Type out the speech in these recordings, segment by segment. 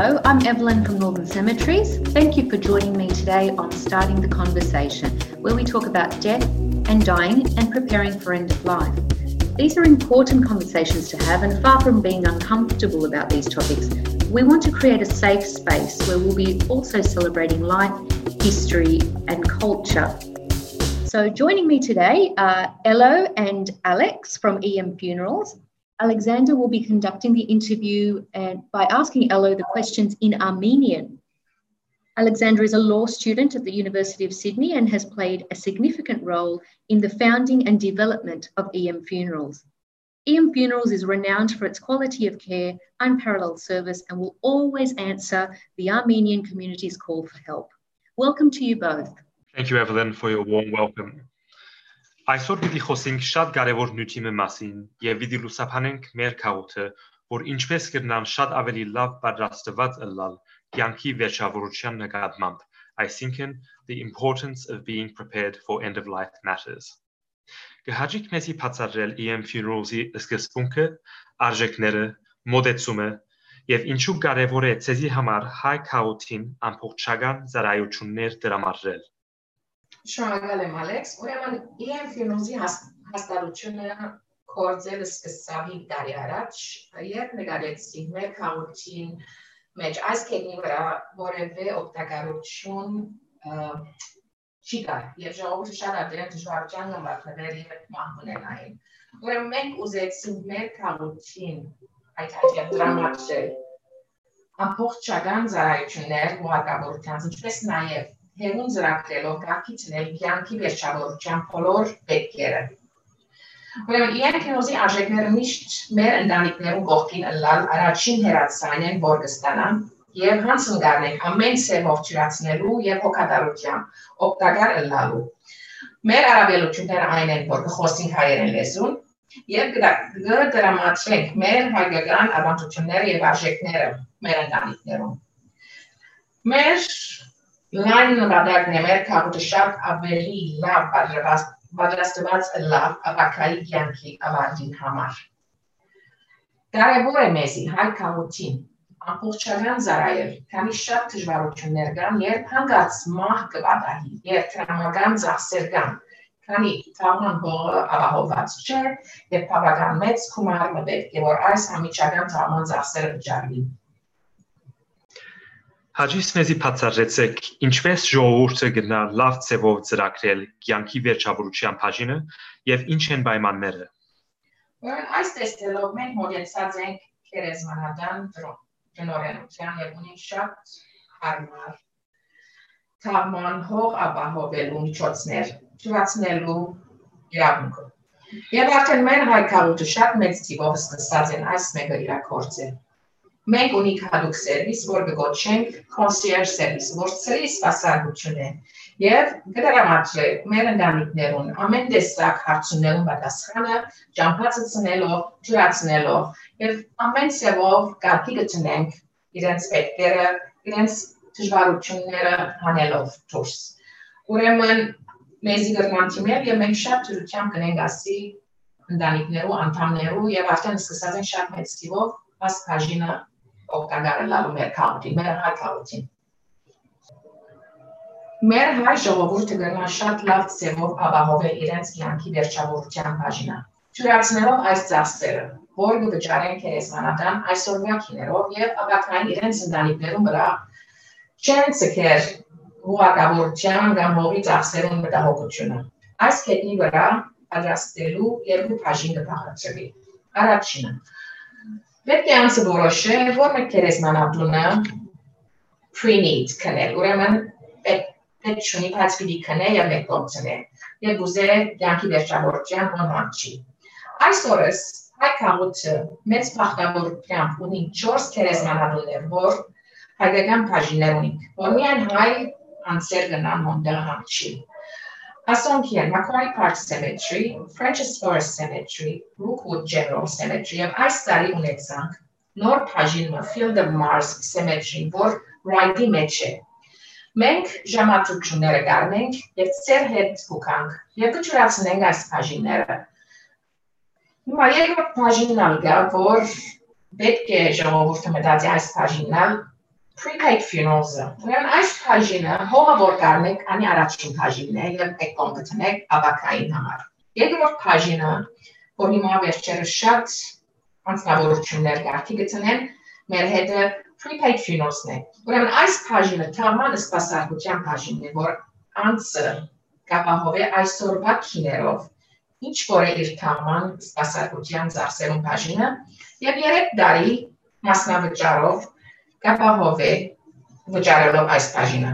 Hello, I'm Evelyn from Northern Cemeteries. Thank you for joining me today on Starting the Conversation, where we talk about death and dying and preparing for end of life. These are important conversations to have, and far from being uncomfortable about these topics, we want to create a safe space where we'll be also celebrating life, history and culture. So joining me today are Elo and Alex from EM Funerals. Alexander will be conducting the interview by asking Elo the questions in Armenian. Alexander is a law student at the University of Sydney and has played a significant role in the founding and development of EM Funerals. EM Funerals is renowned for its quality of care, unparalleled service, and will always answer the Armenian community's call for help. Welcome to you both. Thank you, Evelyn, for your warm welcome. Այսօր պիտի խոսենք շատ կարևոր նյութի մասին եւ պիտի լուսաբանենք մեր քաղաքը, որ ինչպես կգնան շատ ավելի լավ պատրաստված ըլլալ կյանքի վերջավորության նկատմամբ, այսինքն the importance of being prepared for end of life matters. Կհաջիկ մեզի բացատրել EM Funerals-ի սկզբունքը, արժեքները, մոդեցումը եւ ինչու կարևոր է ցեզի համար հայ քաղաքին ամբողջական ծառայություններ դրամարել. Շնորհակալ եմ Ալեքս, ուրեմն EM Funerals-ի հաստատությունը կորձել սկսավ 5 տարի առաջ, երբ նկատեցի մեր քաղաքին մեջ այս կետնի վրա որևէ օգտակարություն չի կար, եւ ժողովուրդը շատ ադերեն դժվարության նամակներ եւ մահմունենային։ Ուրեմն մենք ուզեցինք մեր քաղաքին այդ հաջող դրամատուրգ ամբողջական ծառայություններ հուղարկավորության, ինչպես նաեւ հերուն ծրագրելով կարգիցնել կյանքի վերջավորության բոլոր պետքերը։ Ուրեմն EM Funerals-ի արժեքները միշտ մեր ընտանիքներու կողքին ըլլալ առաջին հերացանն են, որ կստանան եւ հանցն գարնենք ամեն սերով ճրացնելու եւ հոգատարությամբ օգտակար ըլլալու։ Մեր արաբելությունները այն են, որ կխոսենք հայերեն լեզուն եւ կդրամատրենք մեր հայկական ավանդությունները եւ արժեքները մեր ընտանիքներում։ Մեր լայն նկատակն է մեր քաղաքը շատ ավելի լավ պատրաստված լավ ապակայի կյանքի ավարտին համար։ Կարևոր է մեզի հայ քաղաքին ամբողջական ծառայել, քանի շատ դժվարություններ կան, երբ հանգած մահ կվատահի, երբ տրամական ծախսեր կան, քանի թաղման հողը ապահովված չէ եւ բավական մեծ գումար պետք է որ այս ամիջական թաղման ծախսերը վճարվի։ Հաջից մեզի բացատրեցեք, ինչպես ժողովուրդը գնա լավ ձևով ծրագրել կյանքի վերջավորության բաժինը եւ ինչ են պայմանները։ Այս տեսքերով մենք մոտեցած ենք քերեզմանական տնօրենության եւ ունենք շատ հարմար թաղման հող ապահովելու միջոցներ, ճանաչնելու իրավունքը։ Եվ արդեն մեր հայ քաղաքը շատ մեծ թիվով սկսած են այս մեկը իրագործել։ Մենք ունենք հատուկ սերվիս, որ կգոչենք concierge service, որ ծրի սպասարկություն է եւ կդրամատրենք մեր ընտանիքներուն ամեն տեսակ հարցումներուն պատասխանը, ճամփացնելով, ճրացնելով եւ ամեն սեվով կարգի գտնենք իրենց պետքերը, իրենց դժվարությունները հանելով դուրս։ Ուրեմն մեզի գրնանցիմեր եւ մենք շատ դրությամբ կնենք ասի ընտանիքներու անդամներու եւ արդեն սկսած են շատ մեծ թիվով այս բաժինը օգտակար լալու մեր քաղաքին, մեր հայ քաղաքին։ Մեր հայ ժողովուրդը գնա շատ լավ ձևով ապահովել իրենց կյանքի վերջավորության բաժինը։ Ճուրացնելով այս ծախսերը, որ կվճարեն քերեզմանական այսօրվա քիներով եւ ապակային իրենց ընտանիքներում վրա չեն ցկեր հուղարկավորության կամ հողի ծախսերում մտահոգությունը։ Այս կետնի վրա պատրաստելու երկու բաժին կբաղադրվի։ Առաջինը պետք է անցը որոշե, որ մեկ քերեզմանատունը pre-need կնել, ուրեմն պետք չունի բայց պիտի կնե եւ մեկ կողցնե, եւ ուզե կյանքի վերջավորության հոմանչի։ Այս օրս հայ քաղաքը մեծ բախտավորությամբ ունի 4 քերեզմանատուններ, որ հայկական բաժիններ ունի, որ միայն հայ անձեր գնան հոնդեղ համչի։ Ասոնքիան Macquarie Park Cemetery, French's Forest Cemetery, Rookwood General Cemetery եւ այս տարի ունեցանք նոր բաժինը Field of Mars Cemetery, որ Ryde-ի մեջ է։ Մենք ժամացույցները կառնենք եւ ծեր հետ փուքանք եւ կճրացնենք այս բաժինները։ Հիմա երկրորդ բաժինն ալգա, որ պետք է ժողովուրդը մտածի այս բաժինն prepaid funerals-ը։ Ուրեմն այս բաժինը հողը որ կարնեք, անի առաջին բաժինն է եւ եկոն գտնեք ավակային համար։ Երկրորդ բաժինը, որ հիմա վերջերս շատ անձնավորություններ գարքի գտնեն, մեր հետը prepaid funerals-ն է։ Ուրեմն այս բաժինը թաղման սպասարկության բաժինն է, որ անձը կապահովի այսօրվա քիներով, ինչ որ է իր թաղման սպասարկության ծախսերուն բաժինը, եւ 3 տարի մասնավճարով կապահովի վճարելով այս բաժինը։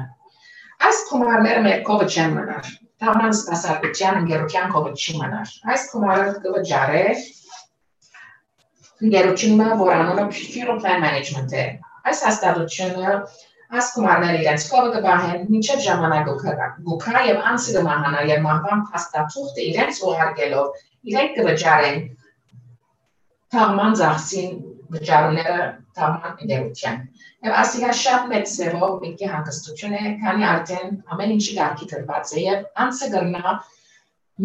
Այս գումարները մեր կողը չեն մնար, թաղման սպասարկության ընկերության կողը չի մնար։ Այս գումարը կվճարե ընկերությունը, որ անունը Funeral Plan Management է։ Այս հաստատությունը այս գումարները իրենց կողը կբահեն մինչև ժամանակը գուքա եւ անձը կմահանա եւ մահվան փաստաթուղթը իրենց ուղարկելով իրենք կվճարեն թաղման ծախսին վճարումները թաղման ընկերության։ Եվ ասիգա շատ մեծ ձևով միտքի հանգստություն է, քանի արդեն ամեն ինչի գարքի դրված է եւ անձը կգնա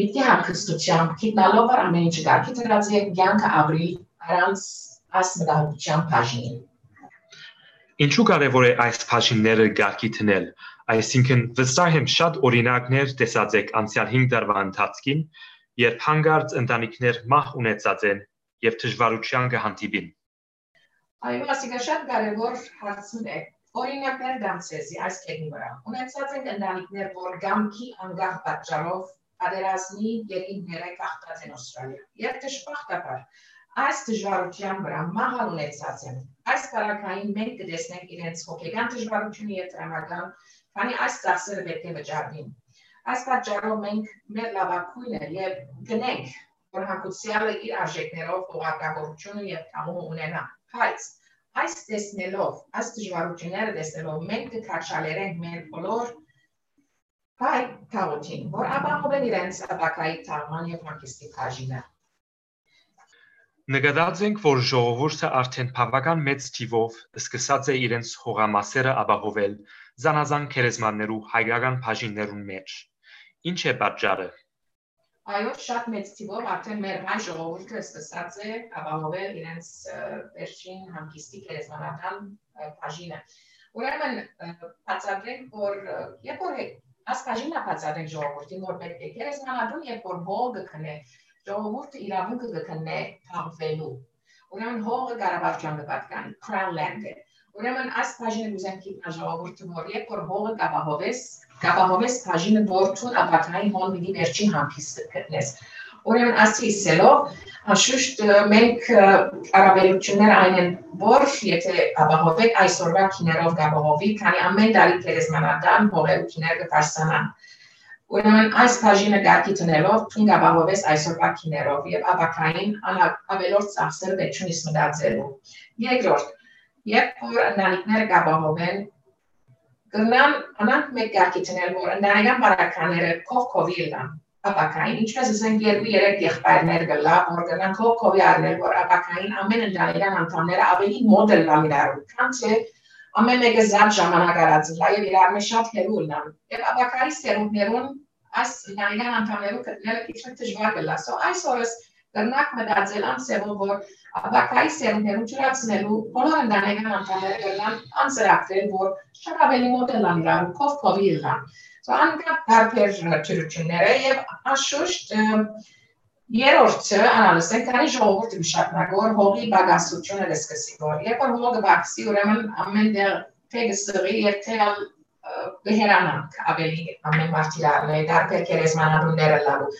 միտքի հանգստությամբ գիտնալով որ ամեն ինչի գարքի դրված է կյանքը ապրի առանց այս մտահոգության բաժին։ Ինչու կարևոր է այս բաժինները գարքի դնել, այսինքն վստահ եմ շատ օրինակներ տեսած եք անցյալ 5 տարվա ընթացքին, երբ հանգարց ընտանիքներ մահ ունեցած են եւ դժվարության կհանդիպին։ Այո, ասիկա շատ կարևոր հարցն է։ Օրինակներ դամսեզի այս կետնի վրա։ Ունեցած են ընտանիքներ, որ գամքի անգահ պատճառով պատերազմի երկինքները կախտած են Ավստրալիա։ Եվ դժբախտաբար այս դժվարության վրա մահալ ունեցած են։ Այս բարակային մենք կտեսնենք իրենց հոգեկան դժվարությունը եւ տրամական, քանի այս ծախսերը պետք է վճարվին։ Այս պատճառով մենք մեր լավակույնը եւ գնենք, որ հակուսյալը իր արժեքներով ուղղակավորությունը եւ կամումը ունենա։ Բայց այս տեսնելով, այս դժվարությունները տեսնելով մենք կքաշալերենք մեր բոլոր հայ թաղուտին, որ ապահովել իրենց ապակայի թաղման եւ հանգստի բաժինը։ Նկատած ենք, որ ժողովուրդը արդեն բավական մեծ թիվով սկսած է իրենց հողամասերը ապահովել զանազան քերեզմաններու հայկական բաժիններուն մեջ։ Ինչ է պատճառը։ Այո, շատ մեծ թիվով արդեն մեր հայ ժողովուրդը սկսած է ապահովել իրենց վերջին հանգստի քերեզմանական բաժինը։ Ուրեմն բացատրենք, որ երբ որ այս բաժինը բացատրենք ժողովրդին, որ պետք է քերեզմանատուն, երբ որ հողը կքնե ժողովուրդը իրավունքը կգտնե թաղվելու։ Ուրեմն հողը Ղարաբաղյան պատկան, Crown Land է։ Ուրեմն այս բաժինը ուզենք իբր ժողովուրդը որ երբ որ հողը կապահովես բաժինը որթուն ապակային հոն մի վերջին հանգիստը գտնես։ Ուրեմն ասիլով անշուշտ մենք արաբելություններ այն են, որ եթե ապահովեք այսօրվա քիներով կապահովի, քանի ամեն տարի քերեզմանատան հողերու քիները կբարձրանան։ Ուրեմն այս բաժինը գարքի տնելով թուն կապահովես այսօրվա քիներով եւ ապակային ավելորդ ծախսերը պետք չունի մտածելու։ Երկրորդ, երբ որ ընտանիքները կապահովեն, կգնան անանք մեկ գարքի տնել, որ ընտանեկան բարականները կողքովի լան ապակային, ինչպես ասենք 2-3 եղբայրներ գլա, որ գնան կողքովի առնել, որ ապակային ամեն ընտանեկան անդամները ավելի մոդել լան իրարու, քան թե ամեն մեկը զատ ժամանակ արածլա եւ իրար մեջ շատ հերու լան։ Եվ ապակայի սերունդներուն այս ընտանեկան անդամներու գտնելը քիչ դժվար կլա։ Այս օրս կրնակ մտածել անսեվով, որ ապակայի սերունդներուն ջրացնելու բոլոր ընտանեկան անդամները կգնան անձրակրել, որ շատ ավելի մոդել լան իրարու, կողքովի լան։ Անկապ տարբեր ճրությունները եւ անշուշտ երրորդը անալսենք, քանի ժողովուրդը մշակնակ որ հողի բագասությունը կսկսի որ երբ որ հողը բացի ուրեմն ամեն դեր թեգսրի եւ թել բհերանանք ավելի ամեն մարտիրարն է տարբեր քերեզմանատունները լալու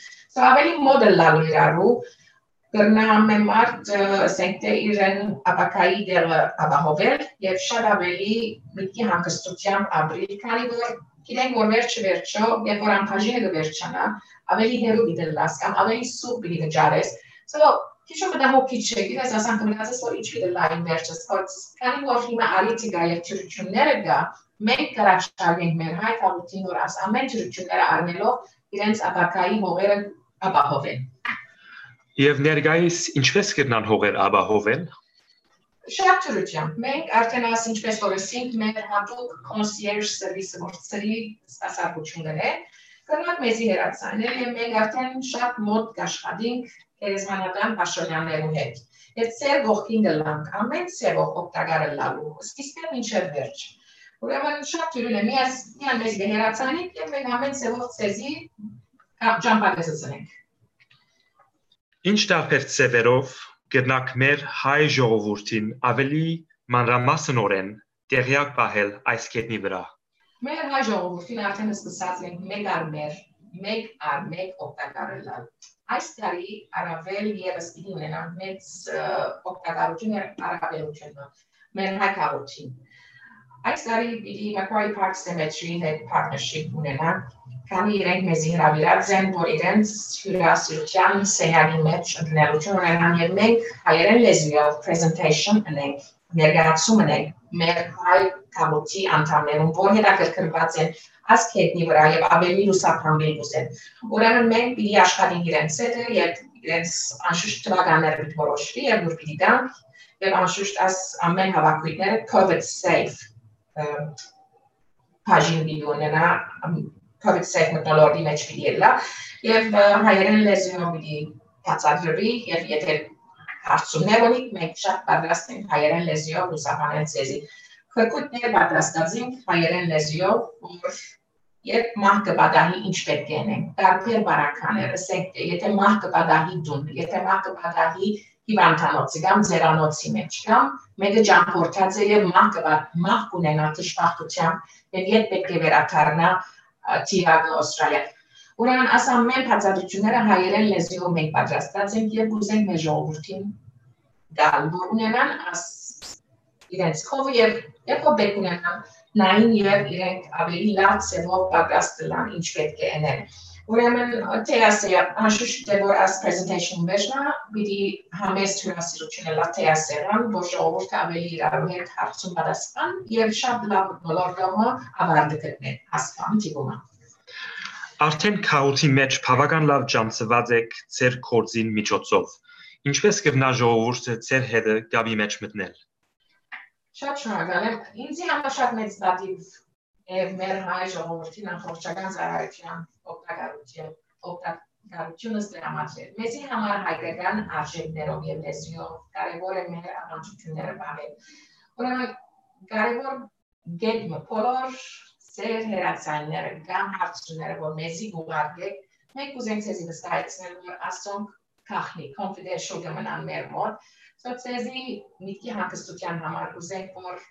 ավելի մոդել լալու իրարու կրնա ամեն մարդ ասենք թե իրեն ապակայի դերը ապահովել եւ շատ ավելի միտքի հանգստությամբ ապրի քանի որ գիտենք որ վերջը երբ որ ամբաժինը կվերջանա ավելի հերու դիտելաս կամ ավելի սուր պիտի վճարես քիչ մտահոգիչ չէ գիտես ասանք մնացես որ ինչ պիտի լայն վերջս քանի որ հիմա արիտիկա եւ ճրությունները կա մենք կարաշարենք մեր հայ թաղուտին որ աս ամեն ճրությունները առնելով իրենց ապակայի հողերը ապահովեն Եվ ներկայիս ինչպես կգնան հողեր ապահովել Շատ ճրությամբ մենք արդեն աս ինչպես որ ասենք մեր հատուկ concierge service որցրի սպասարկություններ է կրնակ մեզի հերացանել եւ մենք արդեն շատ մոտ կաշխատենք գերեզմանատան պաշտոնյաներու հետ։ Եվ ծեր ողքին գլանք, ամեն ծևով օգտակարը լալու, սկիզբը մինչև վերջ։ Ուրեմն շատ ուրույն է, միան մեզ գեհերացանիք և մենք ամեն ծևով ծեզի ճամպակեսացնենք։ Ինչ տարբեր ծևերով գտնակ մեր հայ ժողովուրդին ավելի մանրամասնորեն տեղյակ պահել այս կետնի վրա։ Մեր հայ ժողովուրդին արդեն սկսած ենք մեկ առ մեկ օգտակարը լալ։ Այս տարի առավել ևս պիտի ունենանք մեծ օգտակարություն առավելությունը մեր հայ քաղաքին։ Այս տարի պիտի Macquarie Park Cemetery հետ partnership ունենանք, քանի իրենք մեզ հրավիրած են, որ իրենց հյուրասիրության սենյակի մեջ ընդունելություն ունենան և մենք հայերեն լեզվով presentation ունենք, ներկայացում ունենք մեր հայ քաղաքի անդամներուն, որ հետաքրքրված են այս կետնի վրա և ավելի լուսափանվել կուզեն։ Ուրեմն մենք պիտի աշխատենք իրենց հետ և իրենց անշուշտ թվականները պիտի որոշվի և որ պիտի տանք և անշուշտ այս ամեն հավաքույթները COVID safe բաժին պիտի ունենա, COVID safe մթնոլորտի մեջ պիտի ելա և հայերեն լեզվով պիտի բացատրվի և եթե հարցումներ ունիք, մենք շատ պատրաստ ենք հայերեն լեզվով լուսաբանել ձեզի։ Խրկույթներ պատրաստած ենք հայերեն լեզվով, որ երբ մահ կպատահի ինչ պետք է անենք, տարբեր բարականեր, ասենք, եթե մահ կպատահի տուն, եթե մահ կպատահի հիվանդանոցի կամ ձերանոցի մեջ, կամ մեկը ճամփորդած է և մահ կունենա դժբախտությամբ և երբ պետք է վերադառնա Թիագո Ավստրալիա։ Ուրեմն այս ամեն բացատրությունները հայերեն լեզվով մենք պատրաստած ենք և կուզենք մեր ժողովրդին գալ, որ ունենան իրենց քովը և ով պետք ունենան նային և իրենք ավելի լավ ծևով պատրաստ լան ինչ պետք է անել։ Ուրեմն թեասերը անշուշտ է որ այս presentation վերջնա պիտի համեստ հյուրասիրություն լա թեասերան, որ ժողովուրդը ավելի իրարու հետ հարցում պատասխան և շատ լավ մթնոլորտը ավարտը գտնեն ասկան տիպումը։ Արդեն քաղաքի մեջ բավական լավ ջանցված եք ձեր գործին միջոցով։ Ինչպես կգնա ժողովուրդը ձեր հետը գաբի մեջ մտնել։ Շատ շնորհակալ եմ։ Ինձի համար շատ մեծ դատիվ է մեր հայ ժողովրդին ամբողջական ծառայության օգտակարությունս դրամատրել։ Մեզի համար հայկական արժեքներով և լեզվով կարևոր է մեր առանցությունները պահել։ Ուրեմն կարևոր գետը բոլոր ձեր հերացանները կամ հարցությունները, որ մեզի ուղարկեք, մենք կուզենք ձեզի վստահեցնել, որ ասոնք քախնի, confidential կմնան մեր մոտ, Ձեզի միտքի հանգստության համար կուզենք, որ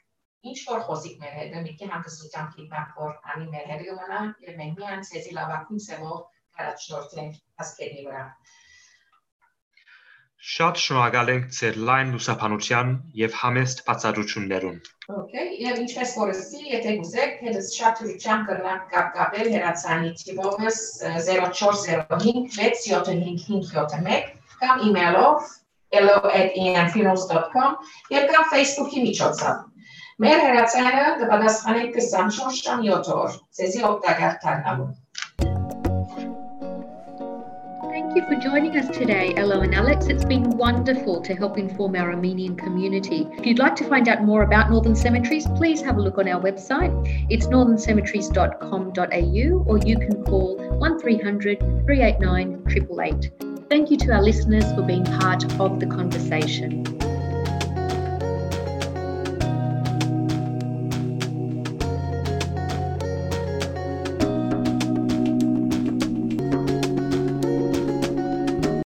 ինչ-որ խոսիկ մեր հետ, միտքի հանգստության կիտնակ, որ անի մեր հետ գմնա և մենք միան ձեզի լավակույն սևով կարաչնորդենք ասկերնի վրա։ Շատ շնորհակալ ենք ձեր լայն լուսաբանության և համեստ բացատրություններուն։ Եվ ինչպես որսի, եթե գուզեք, հետս շատ ուրիչան կրնակ կապել հերացանի թիվովս 0405 675 կամ իմեյլով hello@emfunerals.com և կամ Facebook-ի միջոցով։ Մեր հերացանը կպատասխանենք 24 ժամ 7 օր, ձեզի օգտակար դառնալու։ Thank you for joining us today, Elo and Alex. It's been wonderful to help inform our Armenian community. If you'd like to find out more about Northern Cemeteries, please have a look on our website. It's northerncemeteries.com.au or you can call 1300 389 888. Thank you to our listeners for being part of the conversation.